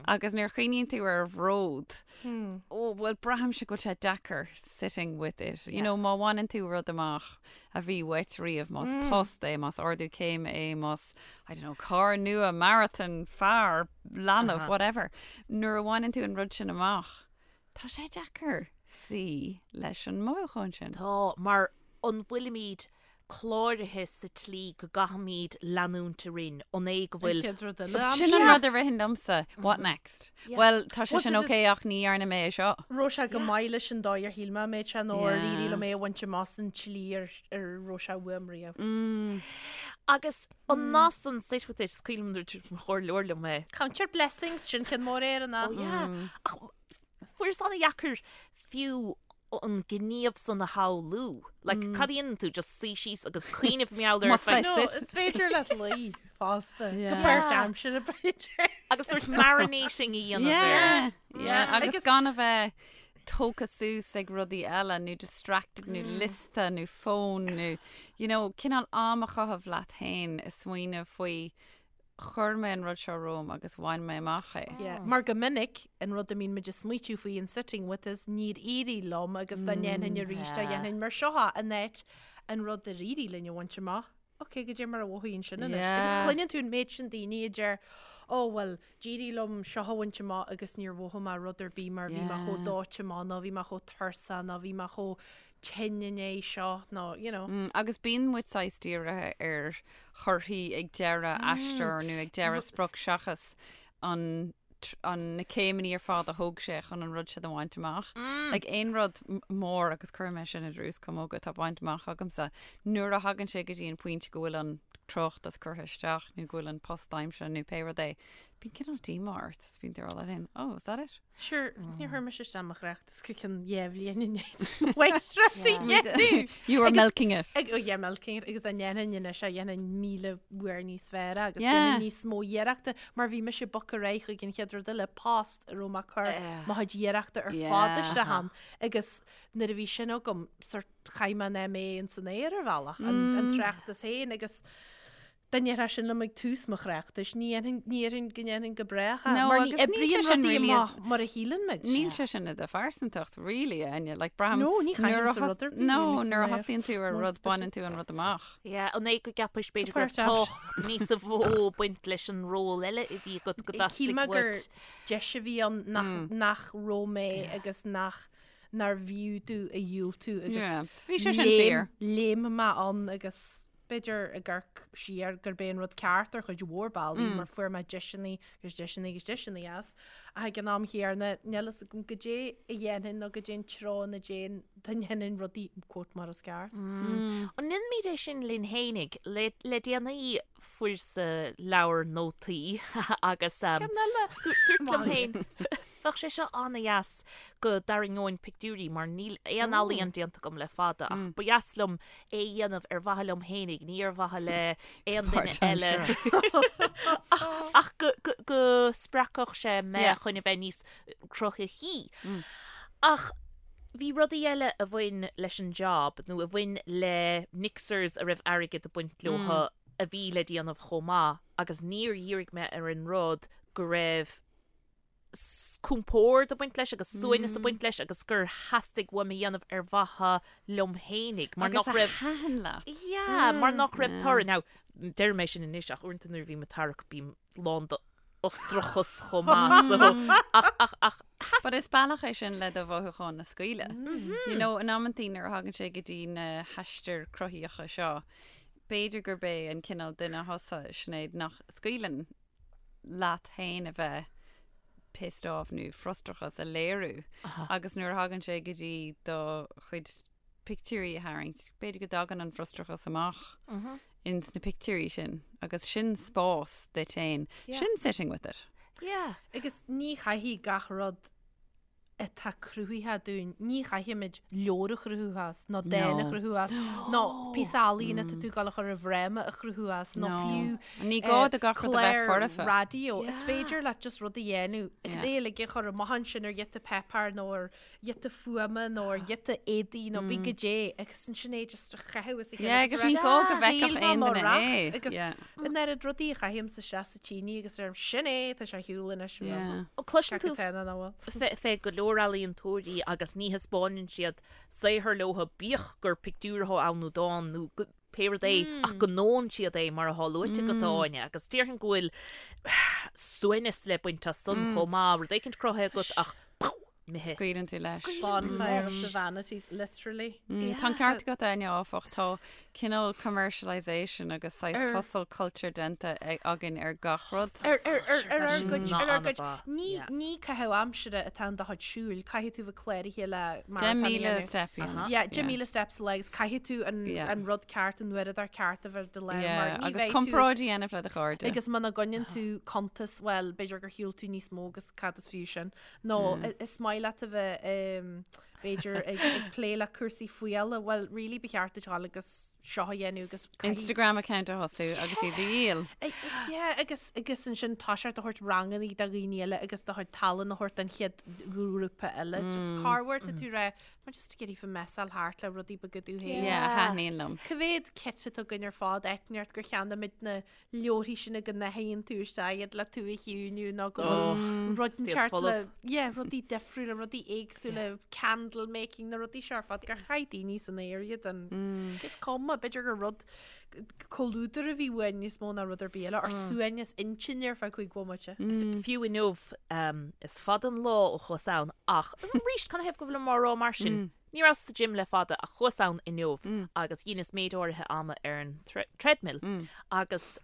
Agus nuair a chuimhníonn tú ar bhród, ó, bhuel, braithimse go bhfuil sé deacair sitting with it. You know, má bhaineann tú rud amach a bhí uait riamh, más post é, más ardú céime é, más, I don't know, carr nua, marathon, fear, leanbh, whatever. Nuair a bhaineann tú an rud sin amach, tá sé deacair suí leis an mothúchán sin. Tá, mar an bhfuilimid cláraithe sa tslí go gcaithfimid leanúint orainn, an é go bhfuil. An chéad rud eile. Sin an rud a ritheann liomsa, what next? Bhuel, tá sé Was sin it ok ach ní dhearna mé é seo. Raibh sé go maith leis an dóigh ar shíl mé mbeadh sé nó ar Yeah. éirigh liom é a bhaint amach san tslí ar ar raibh sé uaim riamh. Agus an nath san sit with it, is cuimhin liom nuair a dúirt mo chomhairleoir liom é. Count your blessings, sin ceann mór Éireannach. Oh yeah. Ach fuaireas an-dheacair fiú an gníomh san a shamhlú. Like, cad a dhéanann tú? Just suí síos agus cuimhneamh mar gheall air. Must I No, sit? is féidir leat luí fosta. Go Yeah. páirtaimseartha b'fhéidir. Agus sort marinating a dhéanamh air. Yeah, yeah. Agus Agus- gan a bheith tógtha suas ag rudaí eile nó distracted nó liosta nó fón nó you know, cineál am a chaitheamh leat féin ag smaoineamh faoi Chuir mé an rud seo romham agus bhain mé amach é. Yeah. Mar go minic, an rud a mbíonn muid ag smaoitiú faoi an sitting with is níor éirigh liom agus dá ndéanfainn arís dá dhéanfainn mar seo é in áit an rud ar éirigh linn a bhaint amach. Ok, goidé mar a mhothaíonn sin anois. Agus Yeah. cluineann tú an méid sin daoine a deir, Ó bhuel, d'éirigh liom seo a bhaint amach agus níor mhothaigh mé rud ar bith mar bhí mé chomh Yeah. dóite amach nó bhí mé chomh tuirseach nó bhí mé chomh tinn i ndiaidh seo nó, you know. Mm, agus bíonn muid saghas dírithe ar thorthaí ag deireadh aistear nó ag deireadh sprioc seachas an an na céimeanna ar fad a thóg sé chun an rud sin a bhaint amach. Like aon rud mór agus cuirfidh mé sin i drús camóga atá bainte amach agamsa, nuair a thagann sé go dtí an pointe go bhfuil an. tráchtas curtha isteach nó go bhfuil an post aimsithe nó pé rud é, bíonn cineál díomá ort is bíonn tú ag rá leat féin, oh, is that it? Sure, níor chuir mise isteach mo thráchtas go ceann dhá bhliain i ndiaidh mháistreacht a dhéanamh. You were milking it. Ag, oh yeah, milking it, agus dá ndéanfainn anois é, dhéanfainn 1,000 uair níos fearr agus dhéanfainn níos mó iarrachta, mar bhí mise ag bogadh ar aghaidh chuig an chéad rud eile, post a raibh mé ag cur mo chuid iarrachta ar fad isteach ann, agus nuair a bhí sin agam, sort chaith mé an MA ins an aer ar bhealach, an tráchtas féin agus dá ndéarfá sin liom ag tús mo thráchtais, ní dhéanfainn, ní dhéarfainn go ndéanfainn go brách é, No, mar ní agus níl sé oibríonn sin rudaí really amach mar a shíleann muid. Níl sé sin i do phearsantacht, really, Áine. Like, braithim No, ní nuair a chaithimse thos- rud ar bith No, really san nuair a aer. thosaíonn tú ar Nó rud, baineann tú an rud amach. Yeah, an é go gceapais b'fhéidir go raibh Páirt tábhacht níos mó baint leis an ról eile a bhí agat go Shíl dteastaigh mé gur uait. deis a bhí ann nach, nach raibh mé agus nach nárbh fhiú domh a dhiúltú agus Yeah, bhí sé sin fíor. léim mé ann agus b'fhéidir ag amharc siar gurb é an rud ceart ar chuid mhór bealaí mar fuair mé deiseanna agus deiseanna agus deiseanna as ach ag an am chéanna níl fhios agam goidé a dhéanfainn nó goidé an treo ina dtéinn dá ndéanfainn rudaí quote mar is ceart. An ndéanaimid é sin linn fhéinig? Le le déanaí fuaireas-sa leabhar nótaí agus Ceann eile! dúrt liom féin Bheadh sé seo an-dheas go dtarraingeoinn pictiúirí mar níl aon ealaíon déanta agam le fada ach ba dheas liom é a dhéanamh ar mhaithe liom fhéinig, ní ar mhaithe le aon duine eile. Ach go spreagfadh sé mé chun a bheith níos cruthaithí. Ach bhí rudaí eile a bhain leis an job nó a bhain le mixers a raibh airgead ag baint leo a bhí le déanamh chomh maith agus níor dhírigh mé ar an rud go raibh compord ag baint leis agus suaimhneas ag baint leis agus gur theastaigh uaim a dhéanamh ar mhaithe liom fhéinig mar Agus nach a raibh thaitin leat. Yeah, mar nach raibh toradh. Now, deirim é sin anois ach uaireanta nuair a bhím ag tarrac bím lán d'fhustrachas chomh maith so ach ach ach But is bealach é sin le do mhothúcháin a scaoileadh. You know, in amantaí nuair a thagann sé go dtí na haistir cruthaíocha seo, b'fhéidir gurb é an cineál duine thusa, Sinéad, nach scaoileann leat féin a bheith pissed off nó frustrachas a léiriú agus nuair a thagann sé go dtí do chuid pictiúirí a tharraingt, b'fhéidir go dtagann an frustrachas amach ins na pictiúirí sin agus sin spás duit féin. Sin sitting with it. Yeah. Agus ní chaithfidh gach rud atá cruthaithe dúinn, ní chaithfimid leabhar a chruthú as, nó dán a chruthú as, nó píosa ealaíne atá tú ag dul a chur i bhfráma a chruthú as, nó fiú Ní gá do gach rud a bheith clár foirfe. raidió. Is féidir leat just rud a dhéanamh agus é uilig a chur amach ansin ar ghiota páipéir nó ar ghiota fuaime nó ar ghiota éadaí nó bí goidé agus ansin é just a chaitheamh as a chéile. Yeah, agus ní gá go bhfeicfeadh aon duine é. Agus an oiread rudaí a chaithimse isteach sa tine agus deirim sin é, tá sé ar shiúl anois. Yeah. Cloiseann tú Ceapadh féin an bhfuil. fé fé go leor ealaíontóirí agus ní thaispeánann siad saothar leo bíodh gur pictiúr atá ann nó dán nó go- pé rud é ach go ndónn siad é mar atá luaite agat Áine agus déarfainn go bhfuil suaimhneas le baint as san chomh maith, rud éicint cruthaithe agat ach pow! imithe. Scaoileann tú leis. Bonfire of the vanities, literally. Tá an ceart agat, Áine, áfach. Tá cineál commercialisation agus saghas hustle culture déanta againn ar gach rud. Ar ar ar ar ár gcuid, ar ár gcuid. Ní ní caitheamh aimsire atá in do chuid siúil, caithfidh tú bheith cláraithe le maratón a 10,000 dhéanamh. step a dhéanamh. Yeah, 10,000 steps sa lá agus caithfidh tú an an rud ceart, an uaireadóir ceart a bheith ar do lámh mar ní Agus bheidh tú comparáid a dhéanamh le do chairde. Agus muna gcoinníonn tú cuntas, bhuel, b'fhéidir gur shiúil tú níos mó agus cad is fiú sin. Nó is maith leat a bheith b'fhéidir ag plé le cúrsaí fuála, bhuel really ba cheart duit dhul agus seo a dhéanamh agus Instagram account a thosú agus iad a dhíol. Yeah, agus agus ansin toiseacht a thabhairt ranganna do dhaoine eile agus do chuid tallann a thabhairt don chéad ghrúpa eile. Just corruair tá tú ag rá, mar just ag iarraidh messáil thart le rudaí beaga dom féin. Yeah, thaitníonn liom. Cá mhéad kit atá againn ar fad, áit inteacht gur cheannaigh muid na leabharthaí sin go n-athraíonn tú isteach iad le tú a chiúiniú nó go bhfuil rud inteacht le yeah, rudaí difriúla, rudaí éagsúla, candle making, na rudaí seo ar fad gur chaith daoine san aer iad an is cuma, b'fhéidir gur rud comhluadar a bhí uainn níos mó ná rud ar bith eile, ár suaimhneas intinne ar feadh cúig bhomaite. Fiú inniu, is fada an lá ó chuas ann ach arís, canathaobh go bhfuilim á rá mar sin? Ní rabhas sa gym le fada ach chuas ann inniu agus dheineas méid áirithe ama ar an treadmill agus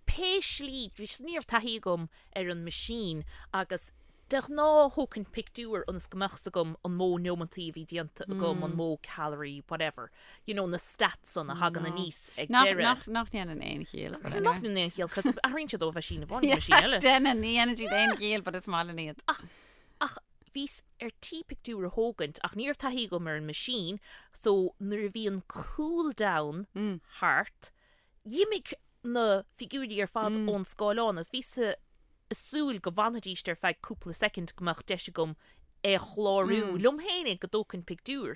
pé slí, ní raibh taithí agam ar an machine agus. De ghnáth thógfainn pictiúr ionas go mbeadh 's agam an mó neomantaí a bhí déanta agam, an mó calorie, whatever. You know, na stats san a thagann aníos ag deireadh. Nach, nach ndéanann aon chiall. But anyway. Nach ndéanann aon chiall, cos athraíonn siad ó mheaisín amháin go meaisín eile. Déanann, ní dhéanann siad aon chiall, but is maith linn iad. Ach, ach bhíos ar tí pictiúr a thógaint ach ní raibh taithí agam ar an machine, so nuair a bhí an cool down thart, D'imigh na figiúirí ar fad ón scáileán agus bhíos ag súil go bhfanfaidíst ar feadh cúpla soicind go mbeadh deis agam é a chlárú liom féinig go dtógfainn pictiúr.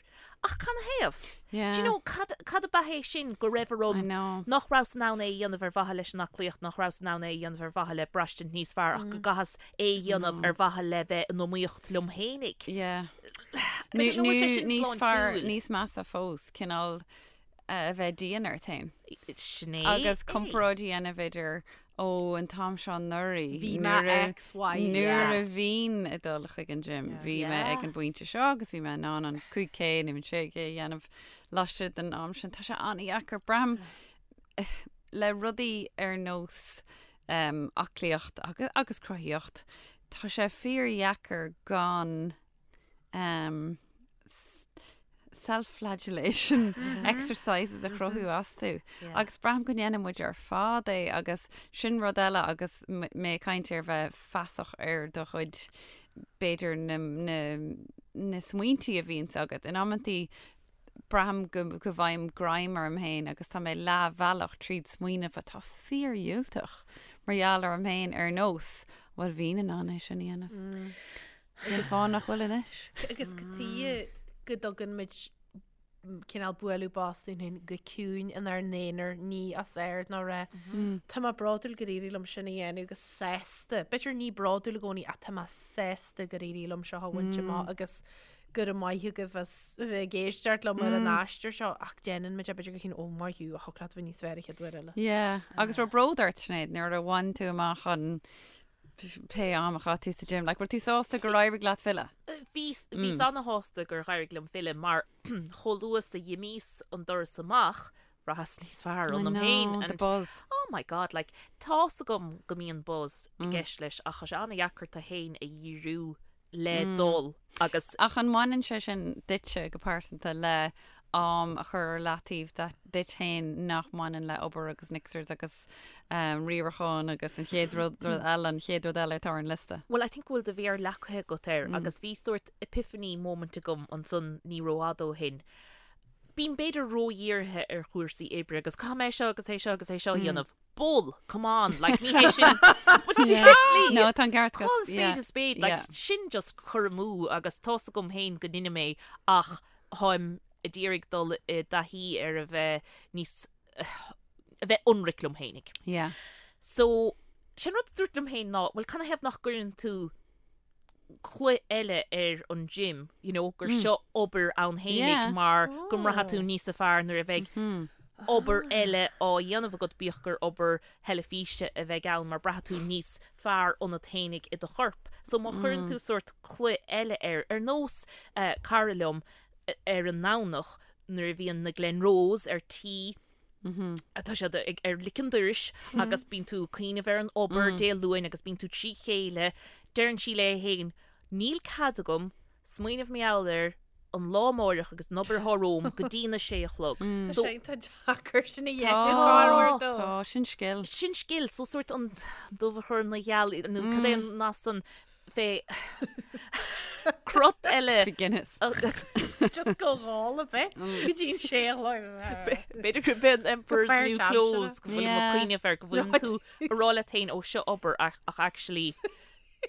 Ach canathaobh? Do you know, cad, cad ab ea é sin go raibh orm nach rabhas in ann é a dhéanamh ar mhaithe leis an aclaíocht, nach rabhas in ann é a dhéanamh ar mhaithe le braistint níos fearr ach go gcaitheas é a dhéanamh ar mhaithe le bheith in iomaíocht liom féinig. Yeah. I don't know bhfuil sé sin Níos fearr, sláintiúil. níos measa fós, cineál a bheith dian ort féin. Sin é. Agus comparáid a dhéanamh idir, ó, an t-am seo anuraidh, Bhí mé X, Y, Z. Nuair a bhínn ag dul chuig an gym, bhí mé ag an bpointe seo agus bhí mé in ann an 5K nó an 6K a dhéanamh laistigh den am sin. Tá sé an-dheacair. Braithim le rudaí ar nós aclaíocht agus cruthaíocht, tá sé fíordheacair gan um, self-flagellation exercises a chruthú astu. Yeah. Agus braithim go ndéanann muid ar fad é agus sin rud eile agus mé ag caint ar bheith feasach ar do chuid b'fhéidir na, na, na smaointí a bhíonns agat. In amantaí braithim go, go bhfaighim greim orm féin agus tá mé leathbhealach tríd smaoineamh atá fíordhiúltach mar gheall orm féin ar nós, bhuel bhínn in ann é sin a dhéanamh. Mm. Cén fáth nach bhfuil anois? Agus cad chuige go dtugann muid cineál bualadh bos dúinn féin go ciúin inár n-aonar, ní os ard ná rá Tá mé bródúil gur éirigh liom sin a dhéanamh agus sásta. B'fhéidir ní bródúil i gcónaí ach tá mé sásta gur éirigh liom seo a bhaint amach agus go raibh maith agaibh as a bheith ag éisteacht liom ar an aistear seo ach déanann muid é b'fhéidir go ciúin ó maith thú a thiocfadh leat a bheith níos fearr an chéad uair eile. Yeah, agus raibh bród ort Sinéad nuair a bhain tú amach an pé am a chaith tú sa gym. Like, bhfuil tú sásta gur éirigh leat filleadh? Bhíos, bhíos ana-shásta gur éirigh liom filleadh mar chomh luath is a dh'imíos an doras amach, bhraitheas níos fearr ionam féin. I know, the buzz. Oh my God, like, tá's agam go mbíonn buzz i gceist leis ach tá sé ana-dheacair tú féin a dhíriú le dul agus. Ach an mbaineann sé sin duitse go pearsanta le am a chur ar leataobh duit féin nach mbaineann le obair agus mixers agus riarachán agus an chéad rud eile, an chéad rud eile atá ar an liosta? Well, I think go bhfuil do mhéar leagtha agat air agus bhí sórt epiphany moment agam ansan ní rófhada ó shin. Bím b'fhéidir ródhírithe ar chúrsaí oibre agus caithfidh mé seo agus é seo agus é seo a dhéanamh. Bull, come on, like ní hé sin, but seriously! No, tá an ceart agat. Call a spade a spade, like sin just cur amú agus tá's agam féin go ndeinim é ach táim ag iarraidh dul i dtaithí ar a bheith níos, a bheith ionraic liom féinig. Yeah. So, sin rud a dúrt liom féin ná, bhuel canathaobh nach gcuireann tú culaith eile ar an gym, you know, gur seo obair ann fhéinig mar go mbraithfidh tú níosa fearr nuair a bheidh obair eile á dhéanamh agat, bíodh gur obair theilifíse a bheidh ann, mar braithfidh tú níos fearr ionat fhéinig i do chorp. So má chuireann tú sórt culaith eile air, ar nós cara liom ar an nDomhnach nuair a bhíonn na Glenroes ar tí, Tá siad ag ar lic an dorais agus bíonn tú ag cuimhneamh ar an obair Dé Luain agus bíonn tú trí chéile. Deireann sí léi féin, níl cead agam smaoineamh mar gheall ar an lá amáireach agus an obair atá romham go dtí na sé a chlog. Tá So sé iontach deacair sin a dhéanamh corruair dó. Tá, sin scil. Sin scil, so sórt an dubh a chur ina gheal nó cad é an nath san fé crot eile. Fé Guinness. Just go dhál a bith go dtí an sé a chlog. B'fhéidir gurb é an Emperor's New Clothes go bhfuil mé ag cuimhneamh air go bhfuil tú ag rá leat féin ó seo obair ach actually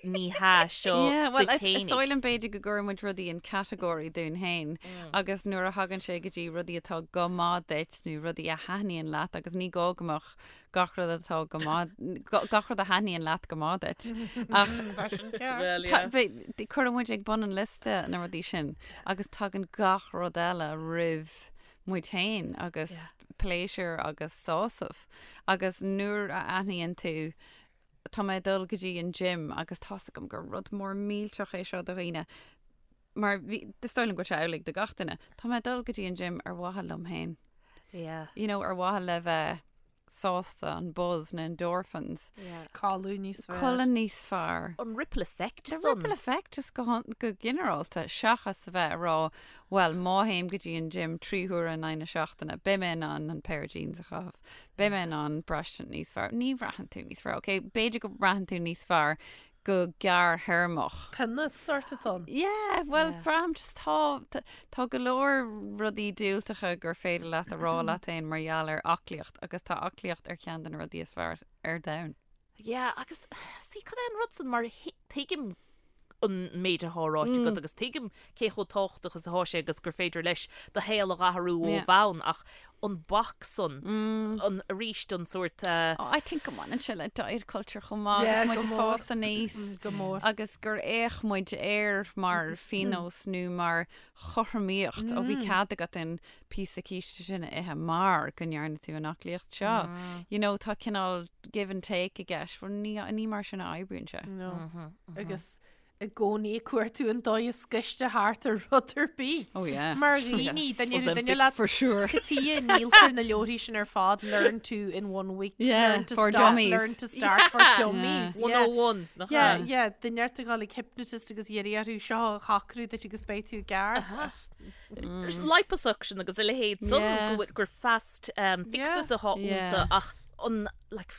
ní hea seo Well duit is fhéinig. dóigh liom b'fhéidir go gcuireann muid rudaí in category dúinn féin agus nuair a thagann sé go dtí rudaí atá go maith duit nó rudaí a thaitníonn leat agus ní gá go mbeadh gach rud atá go maith, gach rud a thaitníonn leat go maith duit. Ach Well, yeah. cuireann muid ag bun an liosta na rudaí sin agus tagann gach rud eile roimh muid féin agus pléisiúr agus sásamh. Agus nuair a aithníonn tú tá mé ag dul go dtí an gym agus tá's agam gur rud mór millteach é seo do dhaoine, mar bhí, is dóigh liom go bhfuil sé amhlaidh do gach duine, tá mé ag dul go dtí an gym ar mhaithe liom féin. Yeah. You know, ar mhaithe le bheith. sásta, an buzz na endorphins. Codladh níos fearr. Codladh níos fearr. An ripple effect The ripple effect just go, go ginearálta seachas a bheith ag rá well má théim go dtí an gym 3 huaire in aghaidh na seachtaine beidh mé in ann an pair of jeans a chaitheamh, beidh mé in ann braistint níos fearr. Ní bhraitheann tú níos fearr, ok? B'fhéidir go mbraitheann tú níos fearr go gearrthéarmach. Pionós sórt atá ann. Yeah, well, braithim just tá, tá go leor rudaí diúltacha gur féidir leat a rá leat féin mar gheall ar aclaíocht agus tá aclaíocht ar cheann de na rudaí is fearr ar domhan. Yeah, agus see, cad é an rud san mar tuigim an méid atá ráite agat agus tuigim cé chomh tábhachtach is atá sé agus gur féidir leis do shaol a dh'athrú ó bhonn ach an bac san, an, arís an sórt. Oh, I think go mbaineann sé le diet culture chomh maith agus muid ag fás aníos Go mór. agus gur fhéach muid air mar phionós nó mar chothromaíocht. Ó bhí cead agat an píosa císte sin a ithe mar go ndearna tú an aclaíocht seo. You know, tá cineál give and take i gceist, bhuel ní, ní mar sin a oibríonn sé. No. Agus i gcónaí ag cuartú an dóigh is gaiste thart ar rud ar bith. Oh yeah. Mar dhaoine, duine ar duine leat For sure. Cad chuige a ndíoltar na leabharthaí sin ar fad, learn to in one week, Yeah, learn to for stop, dummies. learn to start for dummies. Yeah. 101. Nach Yeah, ea? yeah, duine ort a ghabháil ag hypnotist agus iarraidh orthu seo a shocrú duit agus beidh tú i gceart. Liposuction agus a leithéid san Yeah. go bhfuil- gur fast um, fixes atá Yeah. iontu ach an like,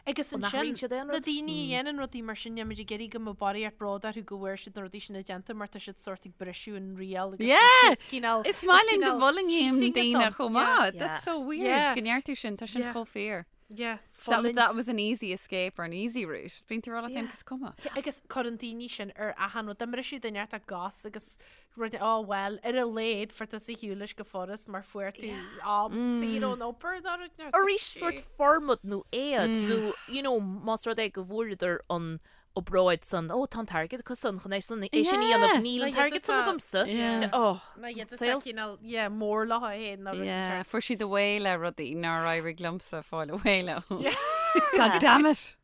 Agus An ansin, athraíonn siad aon na rud? daoine a dhéanann rudaí mar sin, níl muid ag iarraidh go mbeadh barraíocht bród orthu go bhfuair siad na rudaí sin déanta mar tá siad sórt ag briseadh an riail agus Yeah! is cineál Is maith linn go cineál bhfulaingíonn cheating daoine atá ann. chomh maith. Yeah. That's so weird Yeah. go ndeir tú sin, tá sin Yeah. chomh fíor. Yeah, That, fulaing. that was an easy escape or an easy route. Bíonn tú ag rá leat féin is cuma. Agus cuireann daoine sin ar achan rud. Dá mbriseadh duine ort a gcos agus rud oh well, ar a laghad fuair tusa ar shiúl leis go furast mar fuair tú am saor ón obair nó rud nó Arís sórt formad nó éad nó you know más rud é go bhfuaireadar an obráid san ó tá an t-airgead acu san chun é san é sin a dhéanamh níl an t-airgead san agamsa. Oh, Ná iad atá saol. cineál yeah, mór leo féin nó rud Yeah, inteacht. fuair siad away le rudaí nár éirigh liomsa fáil away leo. God damn it.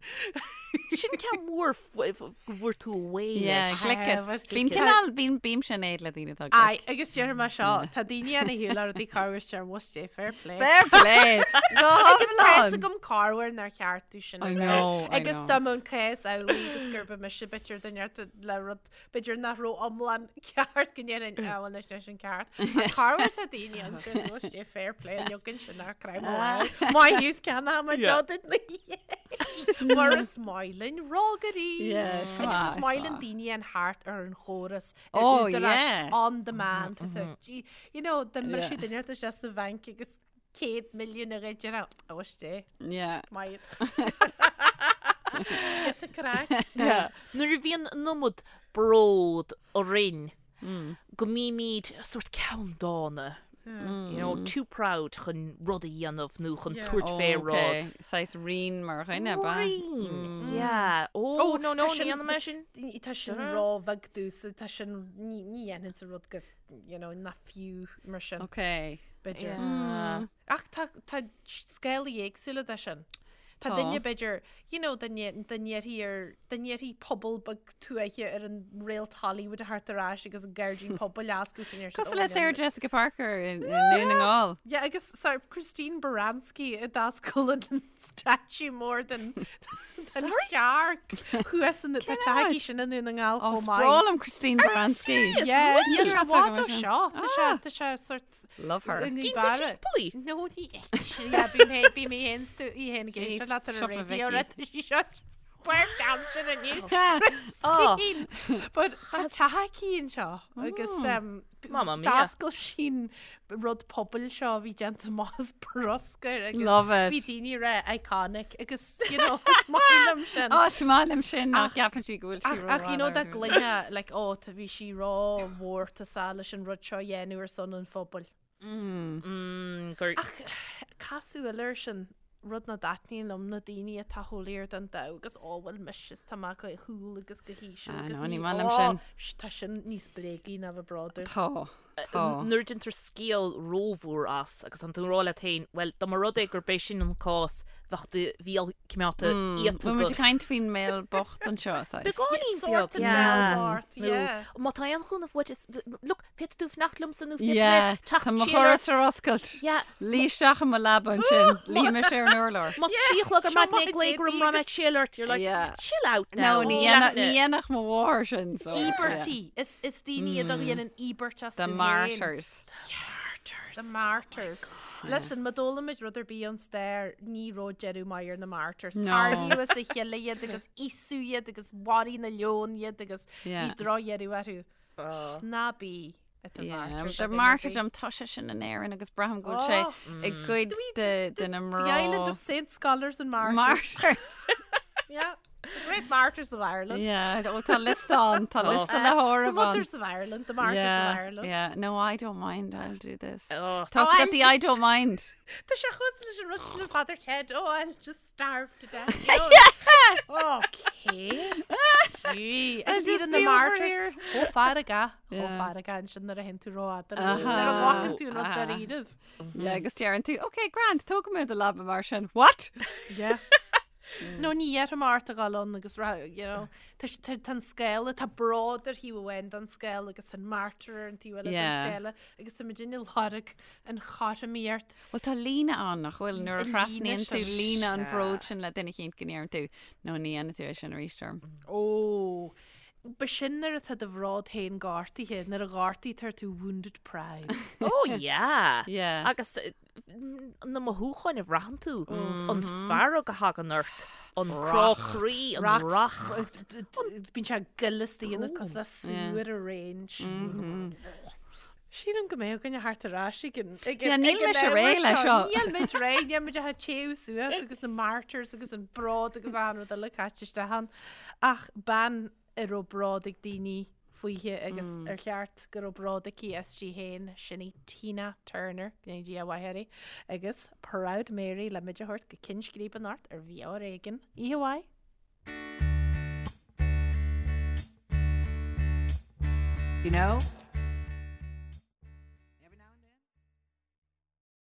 Sin ceann mór go bhfuair tú away Yeah, leis. gliceas. but Bíonn gliceas. cineál, bíonn bímse in éad le daoine atá Aye, glic. agus déarfaidh mé seo, tá daoine ann a shiúil le rudaí corruair is must é fair play. Fair play! Go Agus tá fhios hiomlán! agam corruair nár cheart domh sin a I rá. know, I Agus know. dá mbeadh an cás amhlaidh agus gurb mise b'fhéidir duine ort le rud b'fhéidir nach raibh iomlán ceart go ndéarfainn ah bhuel anois leis an ceart. Ach corruair tá daoine ann is must é fair play leogan sin nach craith mo lámh. Maith thú is ceann am a Yeah. deodaid na Mar is maith linn rógairí. Yeah, Agus maith, is maith linn maith. daoine an thart ar an chóras ar Oh, údaráis yeah. on demand. Tá gee, You know, dá Yeah. mbriseadh duine ort isteach sa bhanc agus 100 milliún a ghoid ar ó isté Yeah. maith. Get a craic. Yeah. Nuair a bhíonn an iomad bród orainn go mbímid sórt ceanndána. You know, too proud chun rud a dhéanamh nó chun Yeah. tabhairt fé Okay. rud. Saghas rian mar dhuine, ba? Rian. Yeah. Oh, Oh, no, no, tá sin- ní dhéanfaidh mé sin. Tá sin róbheag domhsa, tá sin ní ní dhéanfainnse rud go, you know, nach fiú mar sin, Okay. b'fhéidir. Yeah. Ach tá tá scálaí éagsúla de sin. Tá Tá. duine b'fhéidir, you know, dá ndéarfaí ar dá ndéarfaí pobal beag tuaithe ar an réalt Hollywood a theacht ar ais agus an gairdín pobail a oscailt san iarthar. Cosúil le Sarah Jessica Parker i nDún na nGall. Yeah, agus sorry, Christine Baranski a d'oscail an statue mór den den chearc thuas in tá teach aici sin i nDún na nGall Oh, chomh maith. is breá liom Christine Baranski. Yeah, níl sé Níl i bhfad ó sin. seo. Tá sé tá sé sort Love her. i Gíonn tú nGaoth timpeall í? No, ní fheicfidh sí. Yeah, bím fhéin bím mé fhéin stu í fhéin ag éisteacht leat ar an Siopa raidió Vicky. rud tá sí seo Bhuel jam sin inniu. Oh. Christine! But tá teach aici anseo agus um, Mamma mia. d'oscail sí an rud pobail seo a bhí déanta amach as bruscar agus Love it. bhí daoine rá iconic agus you know, is maith liom sin. Oh, is maith liom sin nach Ach- gceapann sí go bhfuil sí Ach, ach you know dá gcluinfeá like oh tá bhí sí rómhórtasach leis an rud seo a dhéanamh ar son an phobail. Mm, gur Ach casadh eile air sin, rud nach dtaitníonn liom na daoine atá chomh léir den domhan agus ó bhuel mise is tá mé go cool agus go híseal Ah, agus no, ní ní maith liom ó, sin. sh- tá sin níos bréagaí ná bheith bródúil. Tá. Tá. Nuair a déantar scéal rómhór as agus tá tú ag rá leat féin, bhuel, dá mba rud é gurb é sin an cás, bheadh do bhéal coimeádta iata Bhfuil muid agat. ag caint faoin mbéal bocht anseo, saghas? Beagáinín beag, Sórt an yeah. bhéal bocht, Nó yeah. má tá aon chúnamh uait, is, look, féadfaidh tú fanacht liomsa nó féadfaidh Yeah, mé teacht tá mo siar ort. dhoras ar oscailt. Yeah. Luigh isteach i mo leaba ansin, luífidh mise ar an urlár. Más 3 a chlog ar Seo maidin maith ag glaoch orm déadaí raibh mé ag triall ort, you're like, Yeah. chill out now. No, ní Ní dhéanfadh leatna. ní dhéanfadh mo mháthair sin, so. yeah. Íobairtí. Is, is daoine iad a dhéanann íobairt astu The féin. martyrs. The martyrs. Listen, má d'fhoghlaim muid rud ar bith ón stair, ní raibh deireadh maith ar na martyrs. No. Tarraingíodh as a chéile iad agus íosadh iad agus mharaigh na leoin iad agus bhí Yeah. drochdheireadh orthu. Ná bí i do Yeah, martyr. The martyrdom, tá sé sin in Éirinn agus braithim go bhfuil sé Oh. i gcuid de de na The Island mná. of Saints, Scholars and Martyrs. Martyrs. Yeah. The great martyrs of Ireland. Yeah, ó, tá liosta ann, tá liosta le The háireamh ann. mothers of Ireland, the martyrs of Yeah, Ireland. yeah. No, I don't mind, I'll do this. Oh, Tá Oh, got the I don't mind. Tá sé chosúil leis an rud sin le Father Ted. Oh, I'll just starve to death. You know? Okay. Gee, I'll Agus iad just in the be over martyrs. here. Chomh feargach, chomh Yeah. feargach ansin nuair a théann tú rófhada. Aha. Nuair a ghlacann tú an rud Aha. dáiríribh. Yeah, agus deireann tú, okay, grand, tógfaidh mé do leaba mar sin. What? Yeah. No, ní dhéarfaidh mé ort a dhul ann agus rá, you know, tá s- tá tá an scéal, tá bród ar thaobh amháin den scéal agus an martyr ar an taobh eile den Yeah. scéal agus tá muid ag lorg an chothromaíocht. Well, tá líne ann nach bhfuil nuair a An líne thrasnaíonn tú sin. líne an bhróid sin le duine eicínt go ndeireann tú, no, ní dhéanfaidh tú é sin arís orm. Ó, b'shin nuair atá do bhród féin gortaithe, nuair a ghortaítear tú wounded pride. Oh yeah. Yeah. Agus eh, na mothúcháin a bhraitheann tú, an fearg a thagann ort, an crá croí, an racht. Bíonn sé ag gol istigh ionat cosúil le sewage range. Sílim go mbeidh againne thart ar ais ag an ag Yeah, an níl ag an mise ábhar réidh leis seo. seo. Níl muid réidh, níl muid ach ag téamh suas agus na martyrs agus an bród agus an rud eile caite isteach ann. Ach bean a raibh bród ag daoine fúithi agus ar cheart go raibh bród aici aisti féin, sin í Tina Turner, go ndéana Dia a mhaith uirthi, agus Proud Mary le muid a thabhairt go cinn scríbe anocht ar Bheo Ar Éigean. Oíche mhaith! You know?